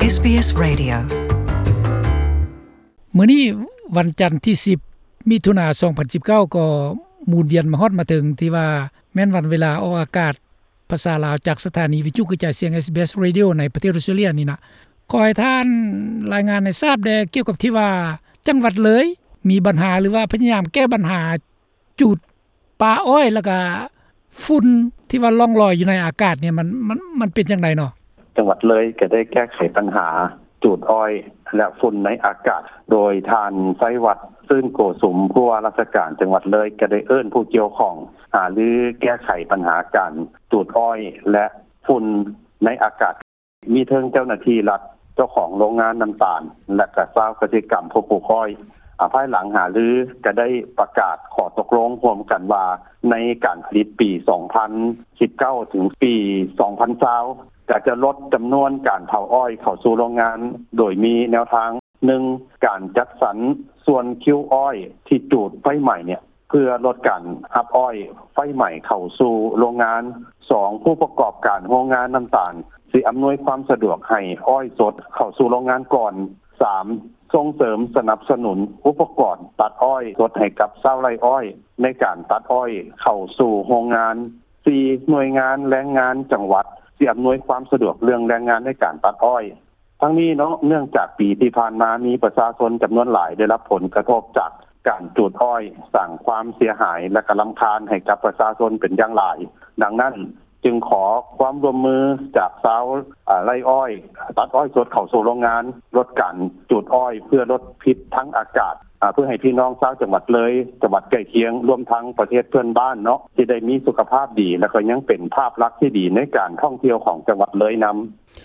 ເອສບີເອສ Radio. ມື້ນີ້ວັນຈັນທີສິບ ມິຖຸນາ ສອງພັນສິບເກົ້າ ກໍໝູນວຽນມາຮອດມາເຖິງທີ່ວ່າແມ່ນວັນເວລາອອກອາກາດພາສາລາວ ຈາກສະຖານີວິທະຍຸກະຈາຍສຽງ ເອສບີເອສ Radio ໃນປະເທດອອສເຕຣເລຍນີ້ນະ. ຂໍໃຫ້ທ່ານລາຍງານໃຫ້ຊາບແດ່ກ່ຽວກັບທີ່ວ່າຈັງຫວັດເລີຍມີບັນຫາ ຫຼືວ່າພະຍາຍາມແກ້ບັນຫາ ຈູດປ່າອ້ອຍ ແລ້ວກະຝຸ່ນທີ່ວ່າລ່ອງລອຍຢູ່ໃນອາກາດນີ້ ມັນ ມັນ ມັນເປັນຈັ່ງໃດເນາະ? ຈັງຫວັດເລີຍກໍໄດ້ແກ້ໄຂບັນຫາຈູດອ້ອຍ ແລະ ຝຸ່ນໃນອາກາດ ໂດຍທ່ານ ໄຊວັດ ຊື່ນໂກສຸມ ຜູ້ວ່າລາຊະການຈັງຫວັດເລີຍ ກໍໄດ້ເອີ້ນຜູ້ກ່ຽວຂ້ອງຫາລືແກ້ໄຂບັນຫາການຈູດອ້ອຍ ແລະ ຝຸ່ນໃນອາກາດ. ມີເຖິງເຈົ້າໜ້າທີ່ລັດ, ເຈົ້າຂອງໂຮງງານນ້ຳຕານ ແລະກະຊາວກະສິກຳຜູ້ປູກອ້ອຍ. ອາ, ພາຍຫຼັງຫາລືກະໄດ້ປະກາດຂໍ້ຕົກລົງຮ່ວມກັນວ່າ ໃນການຜະລິດປີສອງພັນສິບເກົ້າ ເຖິງປີສອງພັນຊາວ ກະຈະລົດຈຳນວນການເຜົາອ້ອຍເຂົ້າສູ່ໂຮງງານ ໂດຍມີແນວທາງ ໜຶ່ງ ການຈັດສັນສ່ວນຄິວອ້ອຍທີ່ຈູດໄຟໄໝ້ເນຍ ເພື່ອລົດການຮັບອ້ອຍໄຟໄໝ້ເຂົ້າສູ່ໂຮງງານ. ສອງ ຜູ້ປະກອບການໂຮງງານນ້ຳຕານ ຊິອຳນວຍຄວາມສະດວກໃຫ້ອ້ອຍສົດເຂົ້າສູ່ໂຮງງານກ່ອນ. ສາມ ສົ່ງເສີມສະໜັບສະໜູນອຸປະກອນຕັດອ້ອຍສົດໃຫ້ກັບຊາວໄຮ່ອ້ອຍ ໃນການຕັດອ້ອຍເຂົ້າສູ່ໂຮງງານ. ສີ່ ໜ່ວຍງານແຮງງານຈັງຫວັດ ຊິອຳນວຍຄວາມສະດວກເລື່ອງແຮງງານໃນການຕັດອ້ອຍ. ທັງນີ້ເນາະ, ເນື່ອງຈາກປີທີ່ຜ່ານມາມີປະຊາຊົນຈຳນວນຫຼາຍໄດ້ຮັບຜົນກະທົບຈາກການຈູດອ້ອຍ, ສ້າງຄວາມເສຍຫາຍ ແລະ ກະລຳຄານໃຫ້ກັບປະຊາຊົນເປັນຢ່າງຫຼາຍ. ດັ່ງນັ້ນ, ຈຶ່ງຂໍຄວາມຮ່ວມມືຈາກຊາວ, ເອີ, ໄຮ່ອ້ອຍ, ຕັດອ້ອຍສົດເຂົ້າສູ່ໂຮງງານ, ລົດການຈູດອ້ອຍ ເພື່ອລົດພິດທາງອາກາດ, ເພື່ອໃຫ້ພີ່ນ້ອງຊາວຈັງຫວັດເລີຍ, ຈັງຫວັດໃກ້ຄຽງ, ລວມທັງປະເທດເພື່ອນບ້ານເນາະ, ຊິໄດ້ມີສຸຂະພາບດີ ແລະ ກໍຍັງເປັນພາບລັກທີ່ດີໃນການທ່ອງທ່ຽວຂອງຈັງຫວັດເລີຍນຳ.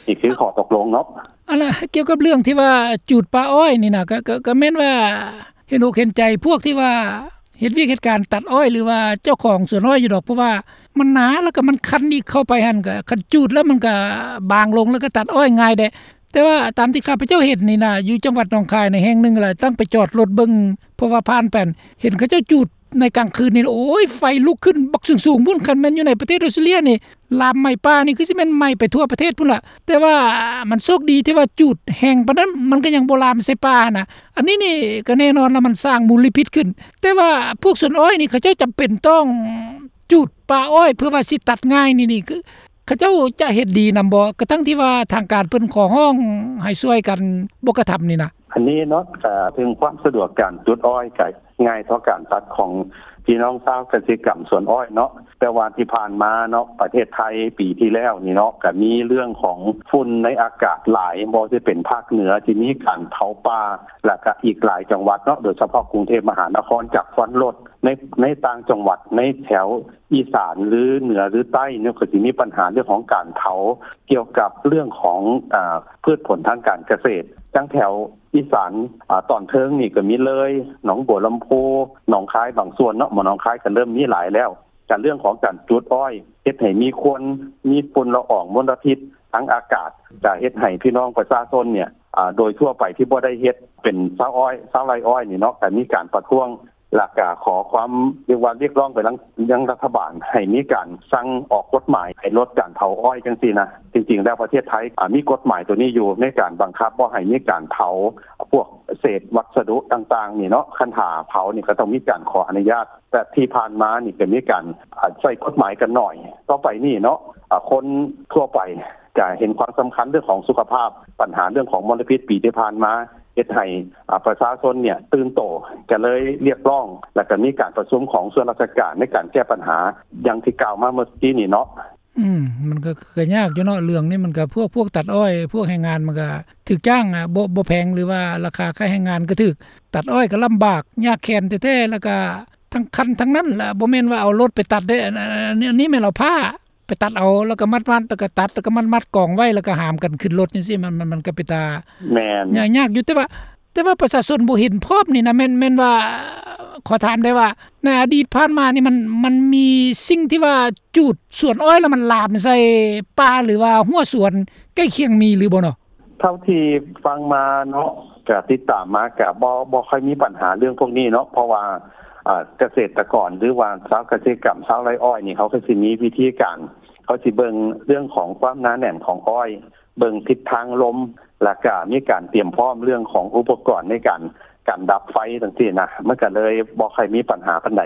ນີ້ຄືຂໍ້ຕົກລົງເນາະ. ອັນລະ ກ່ຽວກັບເລື່ອງທີ່ວ່າຈູດປ່າອ້ອຍນີ້ນະ ກໍ ກໍ ກໍແມ່ນວ່າເຫັນອົກເຫັນໃຈພວກທີ່ວ່າເຮັດວຽກເຮັດການຕັດອ້ອຍ ຫຼືວ່າເຈົ້າຂອງສວນອ້ອຍຢູ່ດອກ, ເພາະວ່າມັນໜາ ແລ້ວກໍມັນຄັນອີກ ເຂົ້າໄປຫັ້ນກໍ ຄັນຈູດແລ້ວມັນກໍບາງລົງ ແລ້ວກໍຕັດອ້ອຍງ່າຍແດ່. ແຕ່ວ່າຕາມທີ່ຂ້າພະເຈົ້າເຫັນນີ້ນະ ຢູ່ຈັງຫວັດໜອງຄາຍໃນແຫ່ງໜຶ່ງ ແລ້ວຕັ້ງໄປຈອດລົດເບິ່ງ ເພາະວ່າຜ່ານໄປ ເຫັນເຂົາເຈົ້າຈູດໃນກາງຄືນນີ້ ໂອ້ຍ ໄຟລຸກຂຶ້ນບັກສູງໆພຸ້ນ. ຄັນແມ່ນຢູ່ໃນປະເທດອອສເຕຣເລຍນີ້ ລາມໄໝ້ປ່ານີ້ຄືຊິແມ່ນໄໝ້ໄປທົ່ວປະເທດພຸ້ນລະ. ແຕ່ວ່າມັນໂຊກດີທີ່ວ່າຈູດແຮງປານນັ້ນ ມັນກໍຍັງບໍ່ລາມໃສ່ປ່າຫັ້ນນະ. ອັນນີ້ນີ້ກໍແນ່ນອນລະ ມັນສ້າງມົນລະພິດຂຶ້ນ. ແຕ່ວ່າພວກສວນອ້ອຍນີ້ ເຂົາເຈົ້າຈຳເປັນຕ້ອງຈູດປ່າອ້ອຍ ເພື່ອວ່າຊິຕັດງ່າຍນີ້ ນີ້ຄືເຂົາເຈົ້າຈະເຫັນດີນຳບໍ່? ກະທັ່ງທີ່ວ່າທາງການເພິ່ນຂໍຮ້ອງໃຫ້ຊ່ວຍກັນບໍ່ກະທຳນີ້ນະ. ອັນນີ້ເນາະ ເອີ ເຖິງຄວາມສະດວກການຈູດອ້ອຍ ກະ ງ່າຍເທົ່າການຕັດຂອງພີ່ນ້ອງຊາວກະສິກຳສວນອ້ອຍເນາະ. ແຕ່ວ່າທີ່ຜ່ານມາເນາະ ປະເທດໄທປີທີ່ແລ້ວນີ້ເນາະ ກະມີເລື່ອງຂອງຝຸ່ນໃນອາກາດຫຼາຍ, ບໍ່ວ່າຊິເປັນພາກເໜືອທີ່ມີການເຜົາປ່າ ແລະກະອີກຫຼາຍຈັງຫວັດເນາະ, ໂດຍສະເພາະກຸງເທບມະຫານະຄອນ ຈາກຄວັນລົດ ໃນ ໃນຕ່າງຈັງຫວັດ ໃນແຖວອີສານ ຫຼື ເໜືອ ຫຼື ໃຕ້ເນາະ ກະຊິມີບັນຫາເລື່ອງຂອງການເຜົາ ກ່ຽວກັບເລື່ອງຂອງ ອາ ພືດຜົນທາງການກະເສດ. ຈັ່ງແຖວ ອີສານ ອາ ຕອນເທິງນີ້ກໍມີເລີຍ, ໜອງບົວລຳພູ, ໜອງຄາຍບາງສ່ວນເນາະ, ໝາໜອງຄາຍກໍເລີ່ມມີຫຼາຍແລ້ວ. ການເລື່ອງຂອງການຈູດອ້ອຍເຮັດໃຫ້ມີຄວັນ, ມີຝຸ່ນລະອອງມົນລະພິດທາງອາກາດ, ຈະເຮັດໃຫ້ພີ່ນ້ອງປະຊາຊົນເນຍ ອາ ໂດຍທົ່ວໄປທີ່ບໍ່ໄດ້ເຮັດເປັນຊາວອ້ອຍ, ຊາວໄຮ່ອ້ອຍນີ້ເນາະ, ກໍມີການປະທ້ວງ ແລ້ວກະຂໍຄວາມ ຮຽກວ່າຮຽກຮ້ອງໄປຍັງ ຍັງລັດຖະບານໃຫ້ມີການສັ່ງອອກກົດໝາຍໃຫ້ລົດການເຜົາອ້ອຍຈັ່ງຊີ້ນະ. ຈິງໆແລ້ວປະເທດໄທ ອາ ມີກົດໝາຍໂຕນີ້ຢູ່ ໃນການບັງຄັບບໍ່ໃຫ້ມີການເຜົາພວກເສດວັດສະດຸຕ່າງໆນີ້ເນາະ. ຄັນຖ້າເຜົານີ້ກໍຕ້ອງມີການຂໍອະນຸຍາດ, ແຕ່ທີ່ຜ່ານມານີ້ກໍມີການ ອາ ໃຊ້ກົດໝາຍກັນໜ້ອຍ. ຕໍ່ໄປນີ້ເນາະ ອາ ຄົນທົ່ວໄປ ຈະເຫັນຄວາມສຳຄັນເລື່ອງຂອງສຸຂະພາບ, ບັນຫາເລື່ອງຂອງມົນລະພິດປີທີ່ຜ່ານມາ ເຮັດໃຫ້ ອາ ປະຊາຊົນເນຍຕື່ນໂຕ, ກໍເລີຍຮຽກຮ້ອງ ແລ້ວກໍມີການປະຊຸມຂອງສ່ວນລາຊະການໃນການແກ້ບັນຫາ ຢ່າງທີ່ກ່າວມາເມື່ອກີ້ນີ້ເນາະ. ອືມ ມັນກໍ ກໍຍາກຢູ່ເນາະ ເລື່ອງນີ້ມັນກໍ ພວກ ພວກຕັດອ້ອຍ ພວກແຮງງານມັນກໍຖືກຈ້າງ ອາ ບໍ່ ບໍ່ແພງ ຫຼືວ່າລາຄາຄ່າແຮງງານກໍຖືກ, ຕັດອ້ອຍກໍລຳບາກ ຍາກແຄ້ນແທ້ໆ ແລ້ວກໍທັງຄັນທັງນັ້ນລະ ບໍ່ແມ່ນວ່າເອົາລົດໄປຕັດເດ້. ອັນ ອັນ ອັນ ອັນນີ້ແມ່ນເອົາຜ້າ ໄປຕັດເອົາ ແລ້ວກໍມັດໆ ແລ້ວກໍຕັດ ແລ້ວກໍມັດໆກອງໄວ້ ແລ້ວກໍຫາມກັນຂຶ້ນລົດຈັ່ງຊີ້ ມັນ ມັນ ມັນກໍເປັນຕາ ແມ່ນ ຍາກ ຍາກຢູ່. ແຕ່ວ່າ ແຕ່ວ່າປະຊາຊົນບໍ່ເຫັນພ້ອມນີ້ນະ ແມ່ນ ແມ່ນວ່າ ຂໍຖາມໄດ້ວ່າ ໃນອະດີດຜ່ານມານີ້ ມັນ ມັນມີສິ່ງທີ່ວ່າຈູດສວນອ້ອຍ ແລ້ວມັນລາມໃສ່ປ່າ ຫຼືວ່າຮົ້ວສວນໃກ້ຄຽງ ມີຫຼືບໍ່ເນາະ? ເທົ່າທີ່ຟັງມາເນາະ ກະຕິດຕາມມາ ກະບໍ່ ບໍ່ຄ່ອຍມີບັນຫາເລື່ອງພວກນີ້ເນາະ ເພາະວ່າ ອາ ກະເສດຕະກອນ ຫຼືວ່າຊາວກະສິກຳ ຊາວໄຮ່ອ້ອຍນີ້ ເຂົາກໍຊິມີວິທີການ ເຂົາຊິເບິ່ງເລື່ອງຂອງຄວາມໜາແໜ້ນຂອງອ້ອຍ, ເບິ່ງທິດທາງລົມ, ແລ້ວກະມີການຕຽມພ້ອມເລື່ອງຂອງອຸປະກອນໃນການ ການດັບໄຟຈັ່ງຊີ້ນະ ມັນກະເລີຍບໍ່ຄ່ອຍມີບັນຫາປານໃດ.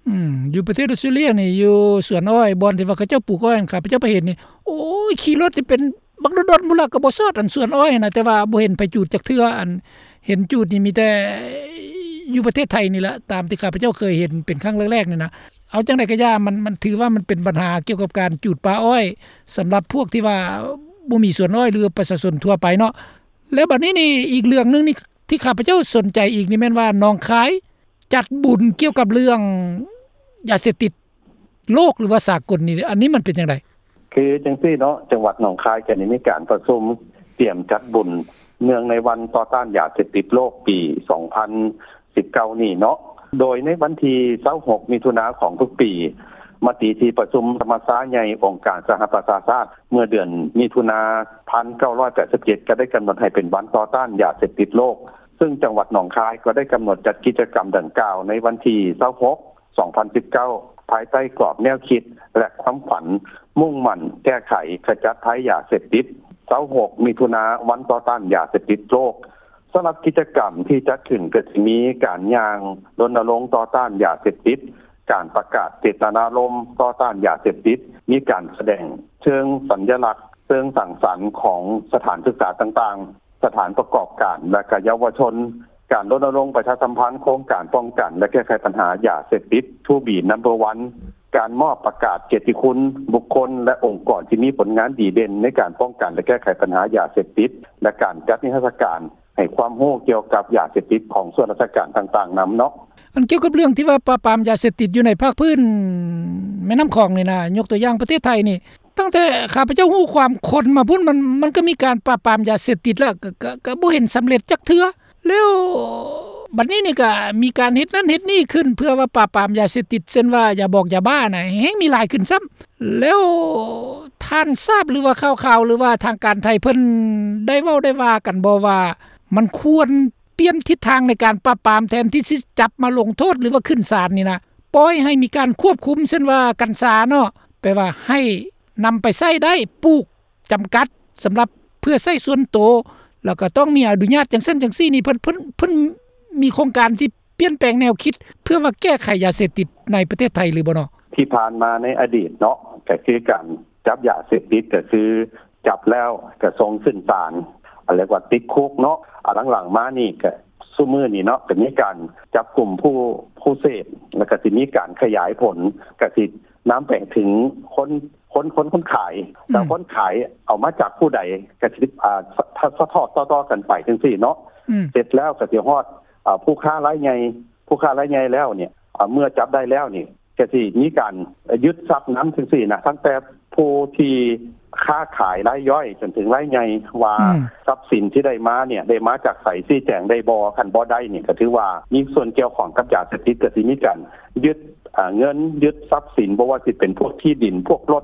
ອືມ ຢູ່ປະເທດອອສເຕຣເລຍນີ້ ຢູ່ສວນອ້ອຍ ບ່ອນທີ່ວ່າເຂົາເຈົ້າປູກອ້ອຍ ຂ້າພະເຈົ້າໄປເຫັນນີ້ ໂອ້ຍ ຂີ່ລົດນີ້ເປັນບັກດົນໆ ພຸ້ນລະ ກໍບໍ່ຊອດ ອັນສວນອ້ອຍນະ ແຕ່ວ່າບໍ່ເຫັນໃຜຈູດຈັກເທື່ອ ອັນເຫັນຈູດນີ້ມີແຕ່ຢູ່ປະເທດໄທນີ້ລະ ຕາມທີ່ຂ້າພະເຈົ້າເຄີຍເຫັນເປັນຄັ້ງແລກໆນີ້ນະ. ເອົາຈັ່ງໃດກໍຢ່າ ມັນ ມັນຖືວ່າມັນເປັນບັນຫາກ່ຽວກັບການຈູດປ່າອ້ອຍ ສຳລັບພວກທີ່ວ່າບໍ່ມີສວນອ້ອຍ ຫຼື ປະຊາຊົນທົ່ວໄປເນາະ. ແລ້ວບັດນີ້ນີ້ ອີກເລື່ອງໜຶ່ງນີ້ ທີ່ຂ້າພະເຈົ້າສົນໃຈອີກນີ້ແມ່ນວ່າ ໜອງຄາຍຈັດບຸນກ່ຽວກັບເລື່ອງຢາເສບຕິດໂລກ ຫຼືວ່າສາກົນນີ້ ອັນນີ້ມັນເປັນຈັ່ງໃດ? ຄືຈັ່ງຊີ້ເນາະ ຈັງຫວັດໜອງຄາຍກະໄດ້ມີການປະຊຸມຕຽມຈັດບຸນເນື່ອງໃນວັນຕໍ່ຕ້ານຢາເສບຕິດໂລກປີສອງພັນສິບເກົ້ານີ້ເນາະ ໂດຍໃນວັນທີຊາວຫົກ ມິຖຸນາຂອງທຸກປີ ມະຕິທີ່ປະຊຸມສະມັດຊາໃຫຍ່ອົງການສະຫະປະຊາຊາດ ເມື່ອເດືອນມິຖຸນາ ພັນເກົ້າຮ້ອຍແປດສິບເຈັດ ກໍໄດ້ກຳນົດໃຫ້ເປັນວັນຕໍ່ຕ້ານຢາເສບຕິດໂລກ ເຊິ່ງຈັງຫວັດໜອງຄາຍກໍໄດ້ກຳນົດຈັດກິດຈະກຳດັ່ງກ່າວໃນວັນທີຊາວຫົກ ສອງພັນສິບເກົ້າ ພາຍໃຕ້ກອບແນວຄິດ ແລະ ຄວາມຝັນມຸ່ງໝັ້ນແກ້ໄຂຂະຈັດໄພຢາເສບຕິດ ຊາວຫົກ ມິຖຸນາ ວັນຕໍ່ຕ້ານຢາເສບຕິດໂລກ. ສຳລັບກິດຈະກຳທີ່ຈັດຂຶ້ນກໍຊິມີການຍ່າງລົນນະລົງຕໍ່ຕ້ານຢາເສບຕິດ, ການປະກາດເຈດຕະນາລົມຕໍ່ຕ້ານຢາເສບຕິດ, ມີການສະແດງເຊີງສັນຍະລັກ, ເຊີງສັງສັນຂອງສະຖານສຶກສາຕ່າງໆ, ສະຖານປະກອບການ ແລະ ກະເຍົາວະຊົນ, ການລົນນະລົງປະຊາສຳພັນໂຄງການປ້ອງກັນ ແລະ ແກ້ໄຂບັນຫາຢາເສບຕິດ ທູບີ ນຳເບີ ວັນ, ການມອບປະກາດກຽດຕິຄຸນບຸກຄົນ ແລະ ອົງກອນທີ່ມີຜົນງານດີເດັ່ນໃນການປ້ອງກັນ ແລະ ແກ້ໄຂບັນຫາຢາເສບຕິດ ແລະ ການຈັດນິທັດສະການໃຫ້ຄວາມຮູ້ກ່ຽວກັບຢາເສບຕິດຂອງສ່ວນລາຊະການຕ່າງໆນຳເນາະ. ອັນກ່ຽວກັບເລື່ອງທີ່ວ່າປາບປາມຢາເສບຕິດຢູ່ໃນພາກພື້ນແມ່ນ້ຳຂອງນີ້ນະ, ຍົກຕົວຢ່າງປະເທດໄທນີ້, ຕັ້ງແຕ່ຂ້າພະເຈົ້າຮູ້ຄວາມຄົນມາພຸ້ນ ມັນ ມັນກໍມີການປາບປາມຢາເສບຕິດແລ້ວ ກໍ ກໍ ກໍບໍ່ເຫັນສຳເລັດຈັກເທື່ອ. ແລ້ວບັດນີ້ນີ້ກໍມີການເຮັດນັ້ນເຮັດນີ້ຂຶ້ນ ເພື່ອວ່າປາບປາມຢາເສບຕິດ ເຊັ່ນວ່າຢາບອງຢາບ້ານະ ແຮ່ງມີຫຼາຍຂຶ້ນຊ້ຳ. ແລ້ວທ່ານຊາບ ຫຼືວ່າຂ່າວໆ ຫຼືວ່າທາງການໄທເພິ່ນໄດ້ເວົ້າໄດ້ວ່າກັນບໍ່ວ່າ ມັນຄວນປ່ຽນທິດທາງໃນການປາບປາມ ແທນທີ່ຊິຈັບມາລົງໂທດ ຫຼືວ່າຂຶ້ນສານນີ້ນະ, ປ່ອຍໃຫ້ມີການຄວບຄຸມ ເຊັ່ນວ່າກັນຊາເນາະ, ແປວ່າໃຫ້ນຳໄປໃຊ້ໄດ້ ປູກ ຈຳກັດສຳລັບເພື່ອໃຊ້ສ່ວນໂຕ ແລ້ວກໍຕ້ອງມີອະນຸຍາດຈັ່ງຊັ້ນຈັ່ງຊີ້ນີ້ ເພິ່ນ ເພິ່ນ ເພິ່ນມີໂຄງການທີ່ປ່ຽນແປງແນວຄິດ ເພື່ອວ່າແກ້ໄຂຢາເສບຕິດໃນປະເທດໄທຫຼືບໍ່ເນາະ? ທີ່ຜ່ານມາໃນອະດີດເນາະ ກໍຄືການຈັບຢາເສບຕິດ ກໍຄືຈັບແລ້ວກໍສົ່ງຂຶ້ນສານ ເອີ້ນວ່າຕິດຄຸກເນາະ. ອາ ຫຼັງໆມານີ້ກໍຊຸມື້ນີ້ເນາະ ກໍມີການຈັບກຸມຜູ້ ຜູ້ເສບ ແລ້ວກໍຊິມີການຂະຫຍາຍຜົນ ກໍຊິນຳໄປເຖິງຄົນ ຄົນ ຄົນ ຄົນຂາຍ ແລ້ວ ອືມ ຄົນຂາຍເອົາມາຈາກຜູ້ໃດ ກໍຊິ ອາ ສະ ສະ ສະທອດຕໍ່ໆກັນໄປຈັ່ງຊີ້ເນາະ. ອືມ ເສັດແລ້ວກໍຊິຮອດ ອາ ຜູ້ຄ້າລາຍໃຫຍ່ ຜູ້ຄ້າລາຍໃຫຍ່ແລ້ວນີ້ ອາ ເມື່ອຈັບໄດ້ແລ້ວນີ້ ກໍຊິມີການຍຶດຊັບນຳຈັ່ງຊີ້ນະ ຕັ້ງແຕ່ຜູ້ທີ່ຄ້າຂາຍລາຍຍ່ອຍຈົນເຖິງລາຍໃຫຍ່ ວ່າ ອືມ ຊັບສິນທີ່ໄດ້ມານີ້ ໄດ້ມາຈາກໃສ ຊີ້ແຈງໄດ້ບໍ່? ຄັນບໍ່ໄດ້ນີ້ ກໍຖືວ່າມີສ່ວນກ່ຽວຂ້ອງກັບຢາເສບຕິດ ກໍຊິມີການຍຶດ ອ່າ ເງິນ ຍຶດຊັບສິນ ບໍ່ວ່າຊິເປັນພວກທີ່ດິນ ພວກລົດ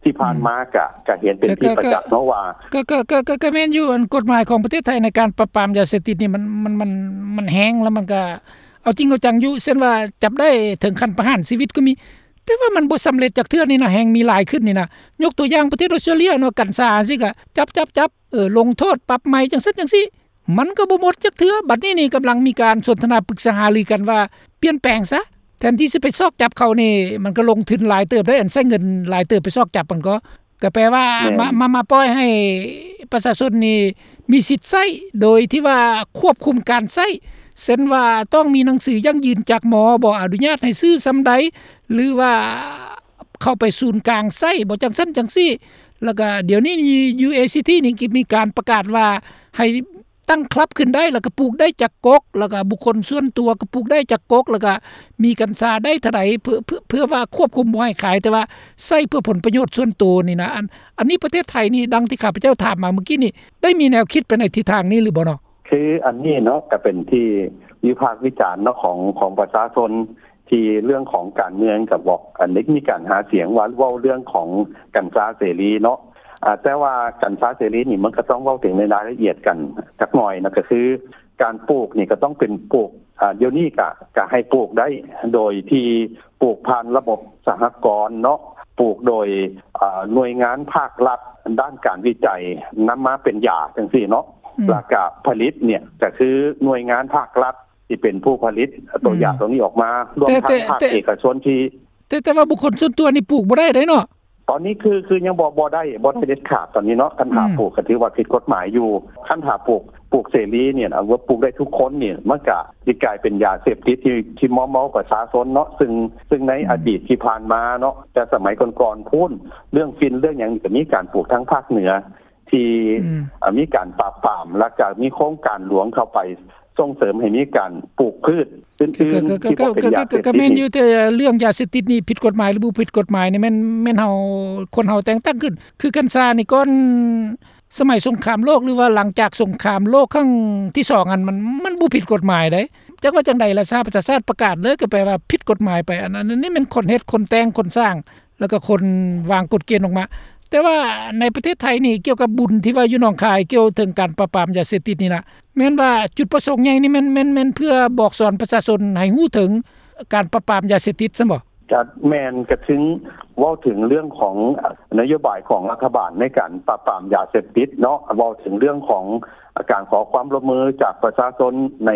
ທີ່ຜ່ານມາ ອືມ ກະ ກະເຫັນເປັນທີ່ປະຈັກເນາະວ່າ ກະ ກະ ກະ ກະ ກະແມ່ນຢູ່ ອັນກົດໝາຍຂອງປະເທດໄທໃນການປາບປາມຢາເສບຕິດນີ້ ມັນ ມັນ ມັນ ມັນແຮງ ແລ້ວມັນກະເອົາຈິງເອົາຈັງຢູ່ ເຊັ່ນວ່າຈັບໄດ້ເຖິງຂັ້ນປະຫານຊີວິດກໍມີ ແຕ່ວ່າມັນບໍ່ສຳເລັດຈັກເທື່ອນີ້ນະ ແຮ່ງມີຫຼາຍຂຶ້ນນີ້ນະ. ຍົກຕົວຢ່າງປະເທດອອສເຕຣເລຍເນາະ ກັນຊາຈັ່ງຊີ້ກະຈັບ ຈັບ ຈັບ ເອີ ລົງໂທດ ປັບໃໝ ຈັ່ງຊັ້ນຈັ່ງຊີ້ ມັນກໍບໍ່ໝົດຈັກເທື່ອ. ບັດນີ້ນີ້ກຳລັງມີການສົນທະນາປຶກສາຫາລືກັນວ່າປ່ຽນແປງຊະ ແທນທີ່ຊິໄປຊອກຈັບເຂົານີ້ ມັນກໍລົງທຶນຫຼາຍເຕີບໄດ໋ ອັນໃຊ້ເງິນຫຼາຍເຕີບໄປຊອກຈັບມັນກໍ ກໍແປວ່າ ແມ່ນ ມາ ມາ ມາປ່ອຍໃຫ້ປະຊາຊົນນີ້ມີສິດໃຊ້ ໂດຍທີ່ວ່າຄວບຄຸມການໃຊ້ ເຊັ່ນວ່າຕ້ອງມີໜັງສືຢັ້ງຢືນຈາກໝໍ ບໍ່ອະນຸຍາດໃຫ້ຊື້ສ່ຳໃດ ຫຼືວ່າເຂົ້າໄປສູນກາງໃຊ້ ບໍ່ຈັ່ງຊັ້ນຈັ່ງຊີ້. ແລ້ວກໍດຽວນີ້ຢູ່ ເອຊີທີ ນີ້ກໍມີການປະກາດວ່າໃຫ້ ຕັ້ງຄລັບຂຶ້ນໄດ້ ແລ້ວກໍປູກໄດ້ຈັກກົກ ແລ້ວກໍບຸກຄົນສ່ວນຕົວກໍປູກໄດ້ຈັກກົກ ແລ້ວກໍມີກັນຊາໄດ້ເທົ່າໃດ ເພື່ອ ເພື່ອ ເພື່ອວ່າຄວບຄຸມບໍ່ໃຫ້ຂາຍ ແຕ່ວ່າໃຊ້ເພື່ອຜົນປະໂຫຍດສ່ວນໂຕນີ້ນະ. ອັນ ອັນນີ້ປະເທດໄທນີ້ ດັ່ງທີ່ຂ້າພະເຈົ້າຖາມມາເມື່ອກີ້ນີ້ ໄດ້ມີແນວຄິດໄປໃນທິດທາງນີ້ຫຼືບໍ່ເນາະ? ຄືອັນນີ້ເນາະ ກໍເປັນທີ່ວິພາກວິຈານເນາະ ຂອງ ຂອງປະຊາຊົນ ທີ່ເລື່ອງຂອງການເມືອງກໍບອກ ອັນໄດ້ມີການຫາສຽງວ່າເວົ້າເລື່ອງຂອງກັນຊາເສລີເນາະ ອາ ແຕ່ວ່າກັນຊາເສລີນີ້ ມັນກໍຕ້ອງເວົ້າເຖິງໃນລາຍລະອຽດກັນຈັກໜ່ອຍນະ ກໍຄືການປູກນີ້ກໍຕ້ອງເປັນປູກ ອາ ດຽວນີ້ກະ ກະໃຫ້ປູກໄດ້ໂດຍທີ່ປູກຜ່ານລະບົບສະຫະກອນເນາະ ປູກໂດຍ ອາ ໜ່ວຍງານພາກລັດດ້ານການວິໄຈນຳມາເປັນຢາຈັ່ງຊີ້ເນາະ. ອືມ ແລ້ວກະຜະລິດເນີ້ຍ ກະຄືໜ່ວຍງານພາກລັດທີ່ເປັນຜູ້ຜະລິດຕົວ ອືມ ຢາຕົວນີ້ອອກມາ ລວມທັງ ແຕ່ ພາກ ແຕ່ ເອກະຊົນທີ່ ແຕ່ ແຕ່ວ່າບຸກຄົນສ່ວນຕົວນີ້ປູກບໍ່ໄດ້ເດ້ເນາະ. ຕອນນີ້ຄື ຄືຍັງບໍ່ ບໍ່ໄດ້ ບໍ່ໄດ້ເດັດຂາດຕອນນີ້ເນາະ. ຄັນຖ້າ ອືມ ປູກກໍຖືວ່າຜິດກົດໝາຍຢູ່. ຄັນຖ້າປູກ ປູກເສລີນີ້ນະ ວ່າປູກໄດ້ທຸກຄົນນີ້ ມັນກະຊິກາຍເປັນຢາເສບຕິດທີ່ ທີ່ມອມເມົາປະຊາຊົນເນາະ. ຊຶ່ງ ຊຶ່ງໃນ ອືມ ອະດີດທີ່ຜ່ານມາເນາະ ແຕ່ສະໄໝກ່ອນໆພຸ້ນ ເລື່ອງຝິ່ນເລື່ອງຫຍັງນີ້ ກໍມີການປູກທາງພາກເໜືອ ທີ່ ອືມ ເອີ ມີການປາບປາມ ແລ້ວກໍມີໂຄງການຫຼວງເຂົ້າໄປສົ່ງເສີມໃຫ້ມີການປູກພືດອື່ນໆ ທີ່ບໍ່ເປັນຢາເສບຕິດ. ກໍແມ່ນຢູ່ ແຕ່ເລື່ອງຢາເສບຕິດນີ້ຜິດກົດໝາຍ ຫຼື ບໍ່ຜິດກົດໝາຍນີ້ ແມ່ນ ແມ່ນເຮົາ ຄົນເຮົາແຕ່ງຕັ້ງຂຶ້ນ. ຄືກັນຊານີ້ ກ່ອນສະໄໝສົງຄາມໂລກ ຫຼືວ່າຫຼັງຈາກສົງຄາມໂລກຄັ້ງທີສອງຫັ້ນ ມັນ ມັນບໍ່ຜິດກົດໝາຍເດ້. ຈັກວ່າຈັ່ງໃດລະ ສະຫະປະຊາຊາດປະກາດເລີຍ ກໍແປວ່າຜິດກົດໝາຍໄປ. ອັນ ອັນນີ້ແມ່ນຄົນເຮັດ ຄົນແຕ່ງ ຄົນສ້າງ ແລ້ວກໍຄົນວາງກົດເກນອອກມາ. ແຕ່ວ່າໃນປະເທດໄທນີ້ ກ່ຽວກັບບຸນທີ່ວ່າຢູ່ໜອງຄາຍ ກ່ຽວເຖິງການປາບປາມຢາເສບຕິດນີ້ນະ ແມ່ນວ່າຈຸດປະສົງໃຫຍ່ນີ້ແມ່ນ ແມ່ນ ແມ່ນເພື່ອບອກສອນປະຊາຊົນໃຫ້ຮູ້ເຖິງການປາບປາມຢາເສບຕິດຊັ້ນບໍ? ກໍແມ່ນ ກໍເຖິງເວົ້າເຖິງເລື່ອງຂອງນະໂຍບາຍຂອງລັດຖະບານໃນການປາບປາມຢາເສບຕິດເນາະ, ເວົ້າເຖິງເລື່ອງຂອງການຂໍຄວາມຮ່ວມມືຈາກປະຊາຊົນໃນ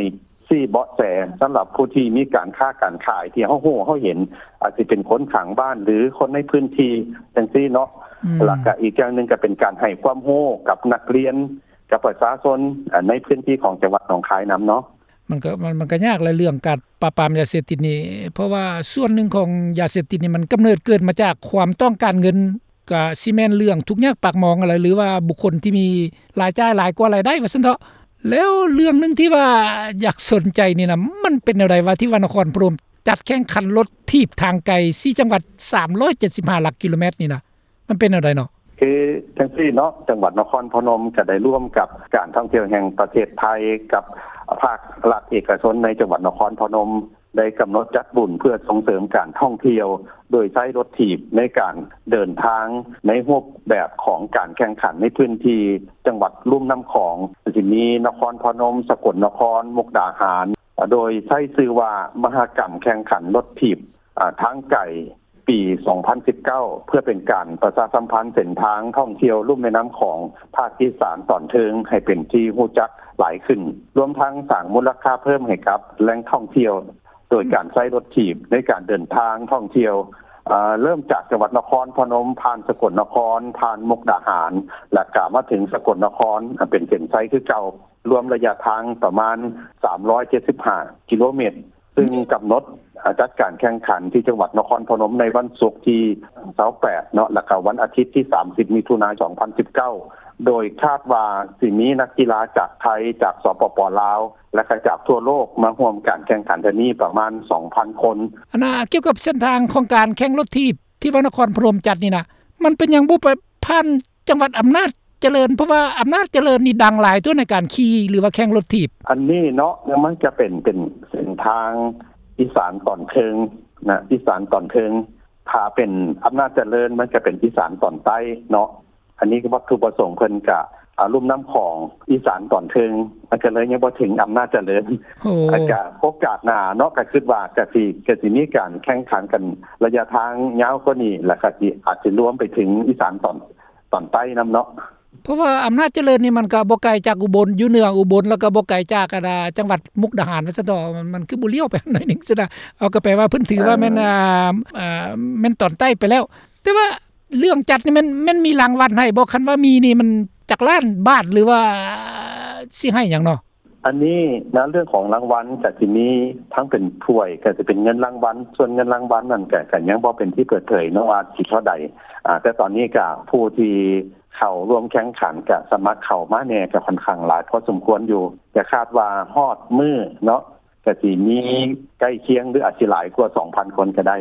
ຊີ້ເບາະແສສຳລັບຜູ້ທີ່ມີການຄ້າການຂາຍທີ່ເຮົາຮູ້ເຮົາເຫັນ ອາດຊິເປັນຄົນຂ້າງບ້ານ ຫຼື ຄົນໃນພື້ນທີ່ຈັ່ງຊີ້ເນາະ. ອືມ ແລ້ວກະອີກຢ່າງໜຶ່ງກະເປັນການໃຫ້ຄວາມຮູ້ກັບນັກຮຽນ ກັບປະຊາຊົນ ອາ ໃນພື້ນທີ່ຂອງຈັງຫວັດໜອງຄາຍນຳເນາະ. ມັນກະ ມັນ ມັນກະຍາກແຫຼະເລື່ອງການປາບປາມຢາເສບຕິດນີ້ ເພາະວ່າສ່ວນໜຶ່ງຂອງຢາເສບຕິດນີ້ ມັນກຳເນີດເກີດມາຈາກຄວາມຕ້ອງການເງິນ ກະຊິແມ່ນເລື່ອງທຸກຍາກປາກໝອງຫັ້ນແຫຼະ ຫຼືວ່າບຸກຄົນທີ່ມີລາຍຈ່າຍຫຼາຍກວ່າລາຍໄດ້ວ່າຊັ້ນເຖາະ. ແລ້ວເລື່ອງໜຶ່ງທີ່ວ່າຢາກສົນໃຈນີ້ນະ ມັນເປັນແນວໃດວະ ທີ່ວ່ານະຄອນພະນົມຈັດແຂ່ງຂັນລົດຖີບທາງໄກສີ່ຈັງຫວັດ ສາມຮ້ອຍເຈັດສິບຫ້າຫຼັກກິໂລແມັດນີ້ນະ ມັນເປັນແນວໃດເນາະ? ຄືຈັ່ງຊີ້ເນາະ ຈັງຫວັດນະຄອນພະນົມກະໄດ້ຮ່ວມກັບການທ່ອງທ່ຽວແຫ່ງປະເທດໄທ ກັບພາກລັດເອກະຊົນໃນຈັງຫວັດນະຄອນພະນົມ ໄດ້ກຳນົດຈັດບຸນເພື່ອສົ່ງເສີມການທ່ອງທ່ຽວ ໂດຍໃຊ້ລົດຖີບໃນການເດີນທາງໃນຮູບແບບຂອງການແຂ່ງຂັນໃນພື້ນທີ່ຈັງຫວັດລຸ່ມນ້ຳຂອງ ຊິມີນະຄອນພະນົມ, ສະກົນນະຄອນ, ມຸກດາຫານ ໂດຍໃຊ້ຊື່ວ່າມະຫະກຳແຂ່ງຂັນລົດຖີບ ອາ ທາງໄກ ປີສອງພັນສິບເກົ້າ ເພື່ອເປັນການປະຊາສຳພັນເສັ້ນທາງທ່ອງທ່ຽວລຸ່ມແມ່ນ້ຳຂອງພາກອີສານຕອນເທິງໃຫ້ເປັນທີ່ຮູ້ຈັກຫຼາຍຂຶ້ນ, ລວມທັງສ້າງມູນລະຄ່າເພີ່ມໃຫ້ກັບແຫຼ່ງທ່ອງທ່ຽວ ໂດຍການໃຊ້ລົດຖີບໃນການເດີນທາງທ່ອງທ່ຽວ ເລີ່ມຈາກຈັງຫວັດນະຄອນພະນົມ, ຜ່ານສະກົນນະຄອນ, ຜ່ານມຸກດາຫານ ແລ້ວກະມາເຖິງສະກົນນະຄອນ ເປັນເສັ້ນໄຊຄືເກົ່າ, ລວມໄລຍະທາງປະມານສາມຮ້ອຍເຈັດສິບຫ້າກິໂລແມັດ. ຊຶ່ງກຳນົດ ອາ ຈັດການແຂ່ງຂັນທີ່ຈັງຫວັດນະຄອນພະນົມໃນວັນສຸກທີຊາວແປດເນາະ ແລ້ວກະວັນອາທິດທີສາມສິບ ມິຖຸນາ ສອງພັນສິບເກົ້າ ໂດຍຄາດວ່າຊິມີນັກກິລາຈາກໄທ, ຈາກ ສປປ ລາວ ແລະກະຈາກທົ່ວໂລກມາຮ່ວມການແຂ່ງຂັນເທື່ອນີ້ປະມານສອງພັນຄົນ. ອັນນ່າ ກ່ຽວກັບເສັ້ນທາງຂອງການແຂ່ງລົດຖີບທີ່ວ່ານະຄອນພະນົມຈັດນີ້ນະ ມັນເປັນຫຍັງບໍ່ໄປຜ່ານ ຈັງຫວັດອຳນາດຈະເລີນ ເພາະວ່າອຳນາດຈະເລີນນີ້ດັງຫຼາຍຕົວະໃນການຂີ່ ຫຼືວ່າແຂ່ງລົດຖີບ. ອັນນີ້ເນາະ ມັນຈະເປັນ ເປັນເສັ້ນທາງອີສານຕອນເທິງນະ ອີສານຕອນເທິງ. ຖ້າເປັນອຳນາດຈະເລີນ ມັນຈະເປັນອີສານຕອນໃຕ້ເນາະ. ອັນນີ້ວັດຖຸປະສົງເພິ່ນກະ ອາ ລຸ່ມນ້ຳຂອງອີສານຕອນເທິງ ມັນກະເລີຍຍັງບໍ່ເຖິງອຳນາດຈະເລີນ. ໂອ້ ອາ ກະໂອກາດໜ້າເນາະ ກະຄິດວ່າກະຊິ ກະຊິມີການແຂ່ງຂັນກັນໄລຍະທາງຍາວກວ່ານີ້ ແລ້ວກະຊິ ອາດຊິລວມໄປເຖິງອີສານຕອນ ຕອນໃຕ້ນຳເນາະ. ເພາະວ່າອຳນາດຈະເລີນນີ້ມັນກະບໍ່ໄກຈາກອຸບົນ ຢູ່ເໜືອອຸບົນ ແລ້ວກະບໍ່ໄກຈາກ ອັນ ຈັງຫວັດມຸກດາຫານວ່າຊັ້ນເຖາະ. ມັນ ມັນຄືບໍ່ລ້ຽວໄປໜ້ອຍໜຶ່ງຊັ້ນນະ. ເອົາ ກະແປວ່າເພິ່ນຖືວ່າແມ່ນ ເອີ ອາ ອາ ແມ່ນຕອນໃຕ້ໄປແລ້ວ. ແຕ່ວ່າເລື່ອງຈັດນີ້ແມ່ນ ແມ່ນມີລາງວັນໃຫ້ບໍ່? ຄັນວ່າມີນີ້ມັນຈັກລ້ານບາດ ຫຼືວ່າຊິໃຫ້ຫຍັງເນາະ? ອັນນີ້ນະ ເລື່ອງຂອງລາງວັນກະຊິມີທັງເປັນຖ້ວຍ ກະຊິເປັນເງິນລາງວັນ. ສ່ວນເງິນລາງວັນນັ້ນກະ ກະຍັງບໍ່ເປັນທີ່ເປີດເຜີຍເນາະວ່າຊິເທົ່າໃດ. ອາ ແຕ່ຕອນນີ້ກະຜູ້ທີ່ເຂົ້າຮ່ວມແຂ່ງຂັນ ກະສະໝັກເຂົ້າມາແດ່ ກະຂ້ອນຂ້າງຫຼາຍພໍສົມຄວນຢູ່. ກະຄາດວ່າຮອດມື້ເນາະ ກະຊິມີໃກ້ຄຽງ ຫຼືອາດຊິຫຼາຍກວ່າສອງພັນຄົນກະໄດ້.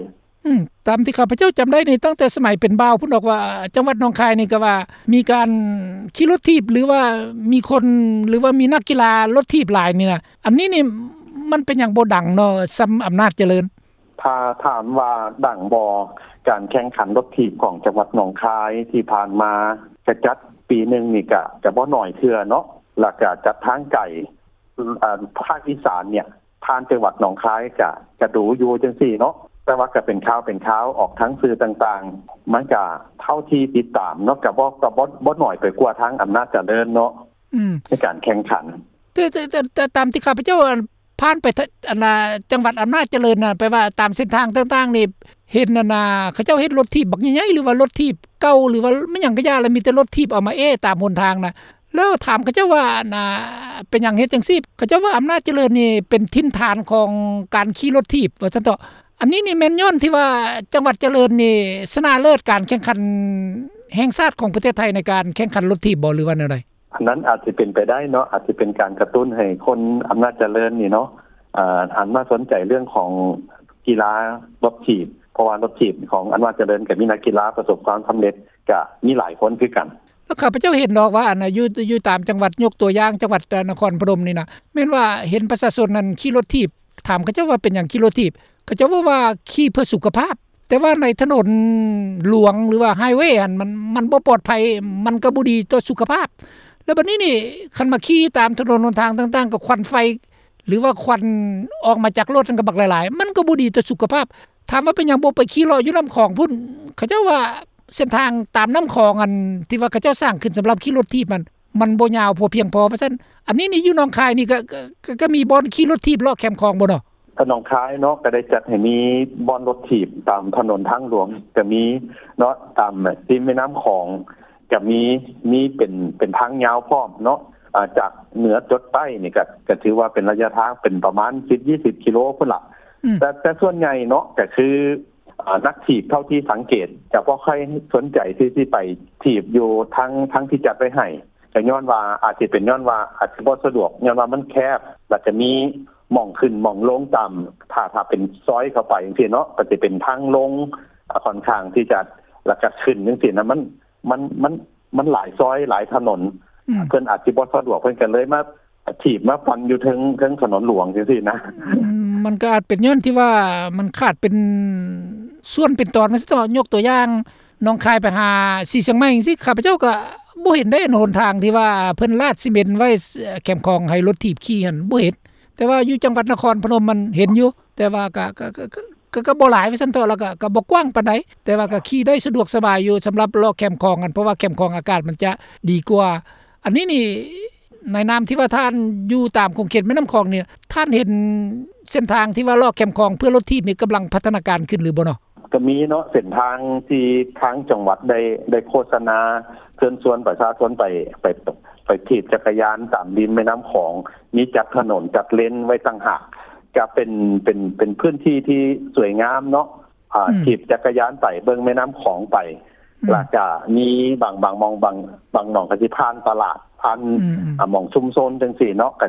ອືມ ຕາມທີ່ຂ້າພະເຈົ້າຈຳໄດ້ນີ້ ຕັ້ງແຕ່ສະໄໝເປັນບ່າວພຸ້ນດອກວ່າ ຈັງຫວັດໜອງຄາຍນີ້ກະວ່າມີການຂີ່ລົດຖີບ ຫຼືວ່າມີຄົນ ຫຼືວ່າມີນັກກິລາລົດຖີບຫຼາຍນີ້ນະ. ອັນນີ້ນີ້ມັນເປັນຫຍັງບໍ່ດັງເນາະ ສ່ຳອຳນາດຈະເລີນ? ຖ້າຖາມວ່າດັງບໍ່ ການແຂ່ງຂັນລົດຖີບຂອງຈັງຫວັດໜອງຄາຍທີ່ຜ່ານມາ ກະຈັດປີໜຶ່ງນີ້ກະ ກະບໍ່ໜ້ອຍເທື່ອເນາະ ແລ້ວກະຈັດທາງໄກ ອາ ພາກອີສານເນີ້ຍ ຜ່ານຈັງຫວັດໜອງຄາຍກະ ກະດູຢູ່ຈັ່ງຊີ້ເນາະ. ແຕ່ວ່າກະເປັນຂ່າວເປັນຄາວອອກທາງສື່ຕ່າງໆ ມັນກະເທົ່າທີ່ຕິດຕາມເນາະ ກະບໍ່ ກະບໍ່ ບໍ່ໜ້ອຍໄປກວ່າທາງອຳນາດຈະເລີນເນາະ. ອືມ ໃນການແຂ່ງຂັນ. ແຕ່ ແຕ່ ແຕ່ ແຕ່ຕາມທີ່ຂ້າພະເຈົ້າ ອັນ ຜ່ານໄປທະ ອັນນ່າ ຈັງຫວັດອຳນາດຈະເລີນນະ ແປວ່າຕາມເສັ້ນທາງຕ່າງໆນີ້ ເຫັນ ອັນນ່າ ເຂົາເຈົ້າເຮັດລົດຖີບບັກໃຫຍ່ໆ ຫຼືວ່າລົດຖີບເກົ່າ ຫຼືວ່າແມ່ນຫຍັງກະຢ່າ ລະມີແຕ່ລົດຖີບເອົາມາແອ້ຕາມຫົນທາງນະ. ແລ້ວຖາມເຂົາເຈົ້າວ່າ ອັນນ່າ ເປັນຫຍັງເຮັດຈັ່ງຊີ້? ເຂົາເຈົ້າວ່າອຳນາດຈະເລີນນີ້ເປັນຖິ່ນຖານຂອງການຂີ່ລົດຖີບ ວ່າຊັ້ນເຖາະ. ອັນນີ້ນີ້ແມ່ນຍ້ອນທີ່ວ່າຈັງຫວັດຈະເລີນນີ້ຊະນະເລີດການແຂ່ງຂັນແຫ່ງຊາດຂອງປະເທດໄທໃນການແຂ່ງຂັນລົດຖີບບໍ່ ຫຼືວ່າແນວໃດ? ອັນນັ້ນອາດຈະເປັນໄປໄດ້ເນາະ, ອາດຈະເປັນການກະຕຸ້ນໃຫ້ຄົນອຳນາດຈະເລີນນີ້ເນາະ ອາ ຫັນມາສົນໃຈເລື່ອງຂອງກິລາລົດຖີບ, ເພາະວ່າລົດຖີບຂອງອຳນາດຈະເລີນກໍມີນັກກິລາປະສົບຄວາມສຳເລັດ ກໍມີຫຼາຍຄົນຄືກັນ. ແລ້ວຂ້າພະເຈົ້າເຫັນດອກວ່າ ອັນ ຢູ່ ຢູ່ຕາມຈັງຫວັດ, ຍົກຕົວຢ່າງ ຈັງຫວັດ ເອີ ນະຄອນພະນົມນີ້ນະ ແມ່ນວ່າເຫັນປະຊາຊົນນັ້ນຂີ່ລົດຖີບ, ຖາມເຂົາເຈົ້າວ່າເປັນຫຍັງຂີ່ລົດຖີບ, ເຂົາເຈົ້າເວົ້າວ່າຂີ່ເພື່ອສຸຂະພາບ, ແຕ່ວ່າໃນຖະໜົນຫຼວງ ຫຼືວ່າໄຮເວຫັ້ນ ມັນ ມັນບໍ່ປອດໄພ, ມັນກໍບໍ່ດີຕໍ່ສຸຂະພາບ. ແລ້ວບັດນີ້ນີ້ ຄັນມາຂີ່ຕາມຖະໜົນຫົນທາງຕ່າງໆ ກໍຄວັນໄຟ ຫຼືວ່າຄວັນອອກມາຈາກລົດຫັ້ນກໍບັກຫຼາຍໆ, ມັນກໍບໍ່ດີຕໍ່ສຸຂະພາບ. ຖາມວ່າເປັນຫຍັງບໍ່ໄປຂີ່ເລາະຢູ່ນ້ຳຂອງພຸ້ນ? ເຂົາເຈົ້າວ່າເສັ້ນທາງຕາມນ້ຳຂອງ ອັນທີ່ວ່າເຂົາເຈົ້າສ້າງຂຶ້ນສຳລັບຂີ່ລົດຖີບນັ້ນ ມັນບໍ່ຍາວພໍພຽງພໍວ່າຊັ້ນ. ອັນນີ້ນີ້ຢູ່ໜອງຄາຍນີ້ ກໍ ກໍ ກໍ ກໍມີບ່ອນຂີ່ລົດຖີບເລາະແຄມຂອງບໍ່ເນາະ? ໜອງຄາຍເນາະ ກໍໄດ້ຈັດໃຫ້ມີບ່ອນລົດຖີບຕາມຖະໜົນທາງຫຼວງກໍມີເນາະ, ຕາມ ແບບ ລິມແມ່ນ້ຳຂອງກໍມີ, ມີເປັນ ເປັນທາງຍາວພ້ອມເນາະ, ອາ ຈາກເໜືອຈົດໃຕ້ນີ້ກໍ ກໍຖືວ່າເປັນໄລຍະທາງເປັນປະມານສິບ ຍີ່ສິບກິໂລພຸ້ນລະ. ອືມ ແຕ່ ແຕ່ສ່ວນໃຫຍ່ເນາະ ກໍຄື ອາ ນັກຖີບເທົ່າທີ່ສັງເກດຈະບໍ່ຄ່ອຍສົນໃຈທີ່ຊິໄປຖີບຢູ່ທາງ ທາງທີ່ຈັດໄວ້ໃຫ້, ກໍຍ້ອນວ່າ ອາດຊິເປັນຍ້ອນວ່າອາດຊິບໍ່ສະດວກ ຍ້ອນວ່າມັນແຄບ ແລ້ວກໍມີໝ່ອງຂຶ້ນໝ່ອງລົງຕາມ ຖ້າ ຖ້າເປັນຊອຍເຂົ້າໄປຈັ່ງຊີ້ເນາະ ກໍຊິເປັນທາງລົງ ອາ ຂ້ອນຂ້າງທີ່ຈະ ແລ້ວກໍຂຶ້ນຈັ່ງຊີ້ນະ ມັນ ມັນ ມັນ ມັນຫຼາຍຊອຍຫຼາຍຖະໜົນ. ອືມ ເພິ່ນອາດຊິບໍ່ສະດວກ ເພິ່ນກໍເລີຍມາຖີບມາປັ່ນຢູ່ເທິງ ເທິງຖະໜົນຫຼວງຈັ່ງຊີ້ນະ. ອືມ ມັນກໍອາດເປັນຍ້ອນທີ່ວ່າມັນຂາດເປັນສ່ວນເປັນຕອນ ວ່າຊັ້ນເຖາະ. ຍົກຕົວຢ່າງ ໜອງຄາຍໄປຫາສີຊຽງໃໝ່ຈັ່ງຊີ້ ຂ້າພະເຈົ້າກໍບໍ່ເຫັນໄດ້ ອັນຫົນທາງທີ່ວ່າເພິ່ນລາດຊີເມັນໄວ້ແຄມຂອງໃຫ້ລົດຖີບຂີ່ຫັ້ນ ບໍ່ເຫັນ. ແຕ່ວ່າຢູ່ຈັງຫວັດນະຄອນພະນົມມັນເຫັນຢູ່ ແຕ່ວ່າກໍ ກໍ ກໍ ກໍ ກໍ ກໍບໍ່ຫຼາຍວ່າຊັ້ນເຖາະ, ແລ້ວກໍ ກໍບໍ່ກວ້າງປານໃດ, ແຕ່ວ່າກໍຂີ່ໄດ້ສະດວກສະບາຍຢູ່ ສຳລັບເລາະແຄມຂອງຫັ້ນ ເພາະວ່າແຄມຂອງອາກາດມັນຈະດີກວ່າ. ອັນນີ້ນີ້ ໃນນາມທີ່ວ່າທ່ານຢູ່ຕາມຂົງເຂດແມ່ນ້ຳຂອງນີ້ ທ່ານເຫັນເສັ້ນທາງທີ່ວ່າເລາະແຄມຂອງເພື່ອລົດຖີບນີ້ກຳລັງພັດທະນາການຂຶ້ນຫຼືບໍ່ເນາະ? ກໍມີເນາະ ເສັ້ນທາງທີ່ທາງຈັງຫວັດໄດ້ ໄດ້ໂຄສະນາເຊີນຊວນປະຊາຊົນໄປ ໄປ ໄປຖີບຈັກກະຍານຕາມລິມແມ່ນ້ຳຂອງ, ມີຈັດຖະໜົນຈັດເລນໄວ້ຕ່າງຫາກ, ກະເປັນ ເປັນ ເປັນພື້ນທີ່ທີ່ສວຍງາມເນາະ. ອືມ ຖີບຈັກກະຍານໄປເບິ່ງແມ່ນ້ຳຂອງໄປ ອືມ ແລ້ວກະມີບາງ ບາງໝ່ອງ ບາງ ບາງໜ່ອງກໍຊິຜ່ານຕະຫຼາດ ຜ່ານ ອືມ ອາ ໝ່ອງຊຸມຊົນຈັ່ງຊີ້ເນາະ, ກະ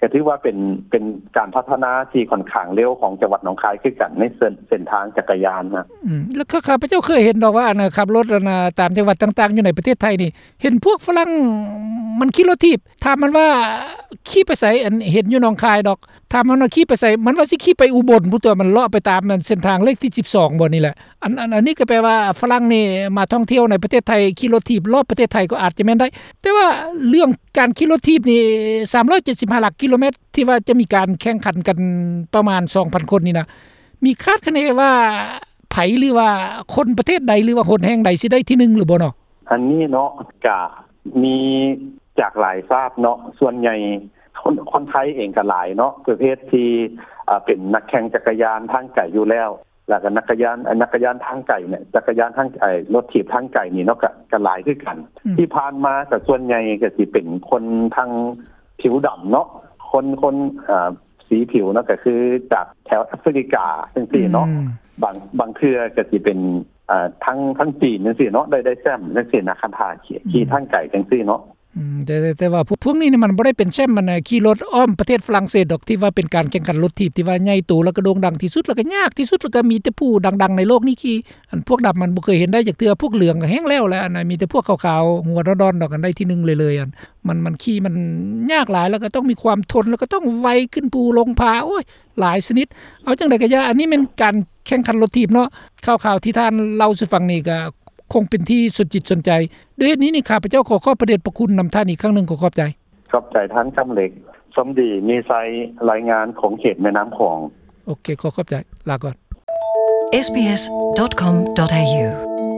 ກະຖືວ່າເປັນ ເປັນການພັດທະນາທີ່ຂ້ອນຂ້າງເລັວຂອງຈັງຫວັດໜອງຄາຍຄືກັນ ໃນເສັ້ນ ເສັ້ນທາງຈັກກະຍານນະ. ອືມ ແລ້ວຂ້າ ຂ້າພະເຈົ້າເຄີຍເຫັນດອກວ່າ ອັນ ຂັບລົດ ອັນ ຕາມຈັງຫວັດຕ່າງໆຢູ່ໃນປະເທດໄທນີ້ ເຫັນພວກຝຣັ່ງມັນຂີ່ລົດຖີບ ຖາມມັນວ່າຂີ່ໄປໃສ ອັນ ເຫັນຢູ່ໜອງຄາຍດອກ ຖາມມັນວ່າຂີ່ໄປໃສ ມັນວ່າຊິຂີ່ໄປອຸບົນພຸ້ນຕົວະ ມັນເລາະໄປຕາມ ອັນ ເສັ້ນທາງເລກທີສິບສອງບໍ່ນີ້ແຫຼະ. ອັນ ອັນ ອັນນີ້ກໍແປວ່າຝຣັ່ງນີ້ມາທ່ອງທ່ຽວໃນປະເທດໄທ ຂີ່ລົດຖີບລອບປະເທດໄທກໍອາດຈະແມ່ນໄດ້, ແຕ່ວ່າເລື່ອງການຂີ່ລົດຖີບນີ້ ສາມຮ້ອຍເຈັດສິບຫ້າຫຼັກກິໂລແມັດ ທີ່ວ່າຈະມີການແຂ່ງຂັນກັນປະມານສອງພັນຄົນນີ້ນະ ມີຄາດຄະເນວ່າໃຜ ຫຼືວ່າຄົນປະເທດໃດ ຫຼືວ່າຫົນແຫ່ງໃດຊິໄດ້ທີໜຶ່ງຫຼືບໍ່ເນາະ? ອັນນີ້ເນາະ ກະມີຈາກຫຼາຍຊາດເນາະ, ສ່ວນໃຫຍ່ຄົນ ຄົນໄທເອງກໍຫຼາຍເນາະ ປະເພດທີ່ ອາ ເປັນນັກແຂ່ງຈັກກະຍານທາງໄກຢູ່ແລ້ວ, ແລ້ວກໍນັກກະຍານ ອາ ຈັກກະຍານທາງໄກນີ້ ຈັກກະຍານທາງ ອາ ລົດຖີບທາງໄກນີ້ເນາະ ກໍ ກໍຫຼາຍຄືກັນ. ອືມ ທີ່ຜ່ານມາກໍສ່ວນໃຫຍ່ກໍຊິເປັນຄົນທາງຜິວດຳເນາະ, ຄົນ ຄົນ ອາ ສີຜິວເນາະ ກໍຄືຈາກແຖວແອຟຣິກາຈັ່ງຊີ້ເນາະ. ອືມ ບາງ ບາງເທື່ອກໍຊິເປັນ ອາ ທາງ ທາງຈີນຈັ່ງຊີ້ເນາະ ໄດ້ ໄດ້ແຊ້ມຈັ່ງຊີ້ນະ ຄັນຖ້າຂີ່ ອືມ ຂີ່ທາງໄກຈັ່ງຊີ້ເນາະ. ອືມ ແຕ່ ແຕ່ ແຕ່ວ່າພວກ ພວກນີ້ນີ້ມັນບໍ່ໄດ້ເປັນແຊ້ມ ອັນ ຂີ່ລົດອ້ອມປະເທດຝຣັ່ງເສດດອກ ທີ່ວ່າເປັນການແຂ່ງຂັນລົດຖີບທີ່ວ່າໃຫຍ່ໂຕ ແລ້ວກໍໂດ່ງດັງທີ່ສຸດ ແລ້ວກໍຍາກທີ່ສຸດ ແລ້ວກໍມີແຕ່ຜູ້ດັງໆໃນໂລກນີ້ຂີ່. ອັນພວກດຳມັນບໍ່ເຄີຍເຫັນໄດ້ຈັກເທື່ອ, ພວກເຫຼືອງກໍແຮງແລ້ວແຫຼະ, ອັນນັ້ນມີແຕ່ພວກຂາວໆຫົວດອນໆດອກ ອັນໄດ້ທີໜຶ່ງເລີຍໆ. ອັນ ມັນ ມັນຂີ່ມັນຍາກຫຼາຍ ແລ້ວກໍຕ້ອງມີຄວາມທົນ ແລ້ວກໍຕ້ອງໄວຂຶ້ນພູລົງຜາ ໂອ້ຍ ຫຼາຍຊະນິດ. ເອົາຈັ່ງໃດກໍຢ່າ ອັນນີ້ແມ່ນການແຂ່ງຂັນລົດຖີບເນາະ. ຂ່າວໆທີ່ທ່ານເລົ່າສູ່ຟັງນີ້ກໍຄົງເປັນທີ່ສົນຈິດສົນໃຈ. ດ້ວຍເຫດນີ້ນີ້ ຂ້າພະເຈົ້າຂໍຂອບພະເດດພະຄຸນນຳທ່ານອີກຄັ້ງໜຶ່ງ. ຂໍຂອບໃຈ. ຂອບໃຈທ່ານຄຳເລັກ. ສົມດີ ມີໄຊ ລາຍງານຂົງເຂດແມ່ນ້ຳຂອງ. ໂອເຄ ຂໍຂອບໃຈ. ລາກ່ອນ. ເອສບີເອສ ດອດ ຄອມ ດອດ ເອຢູ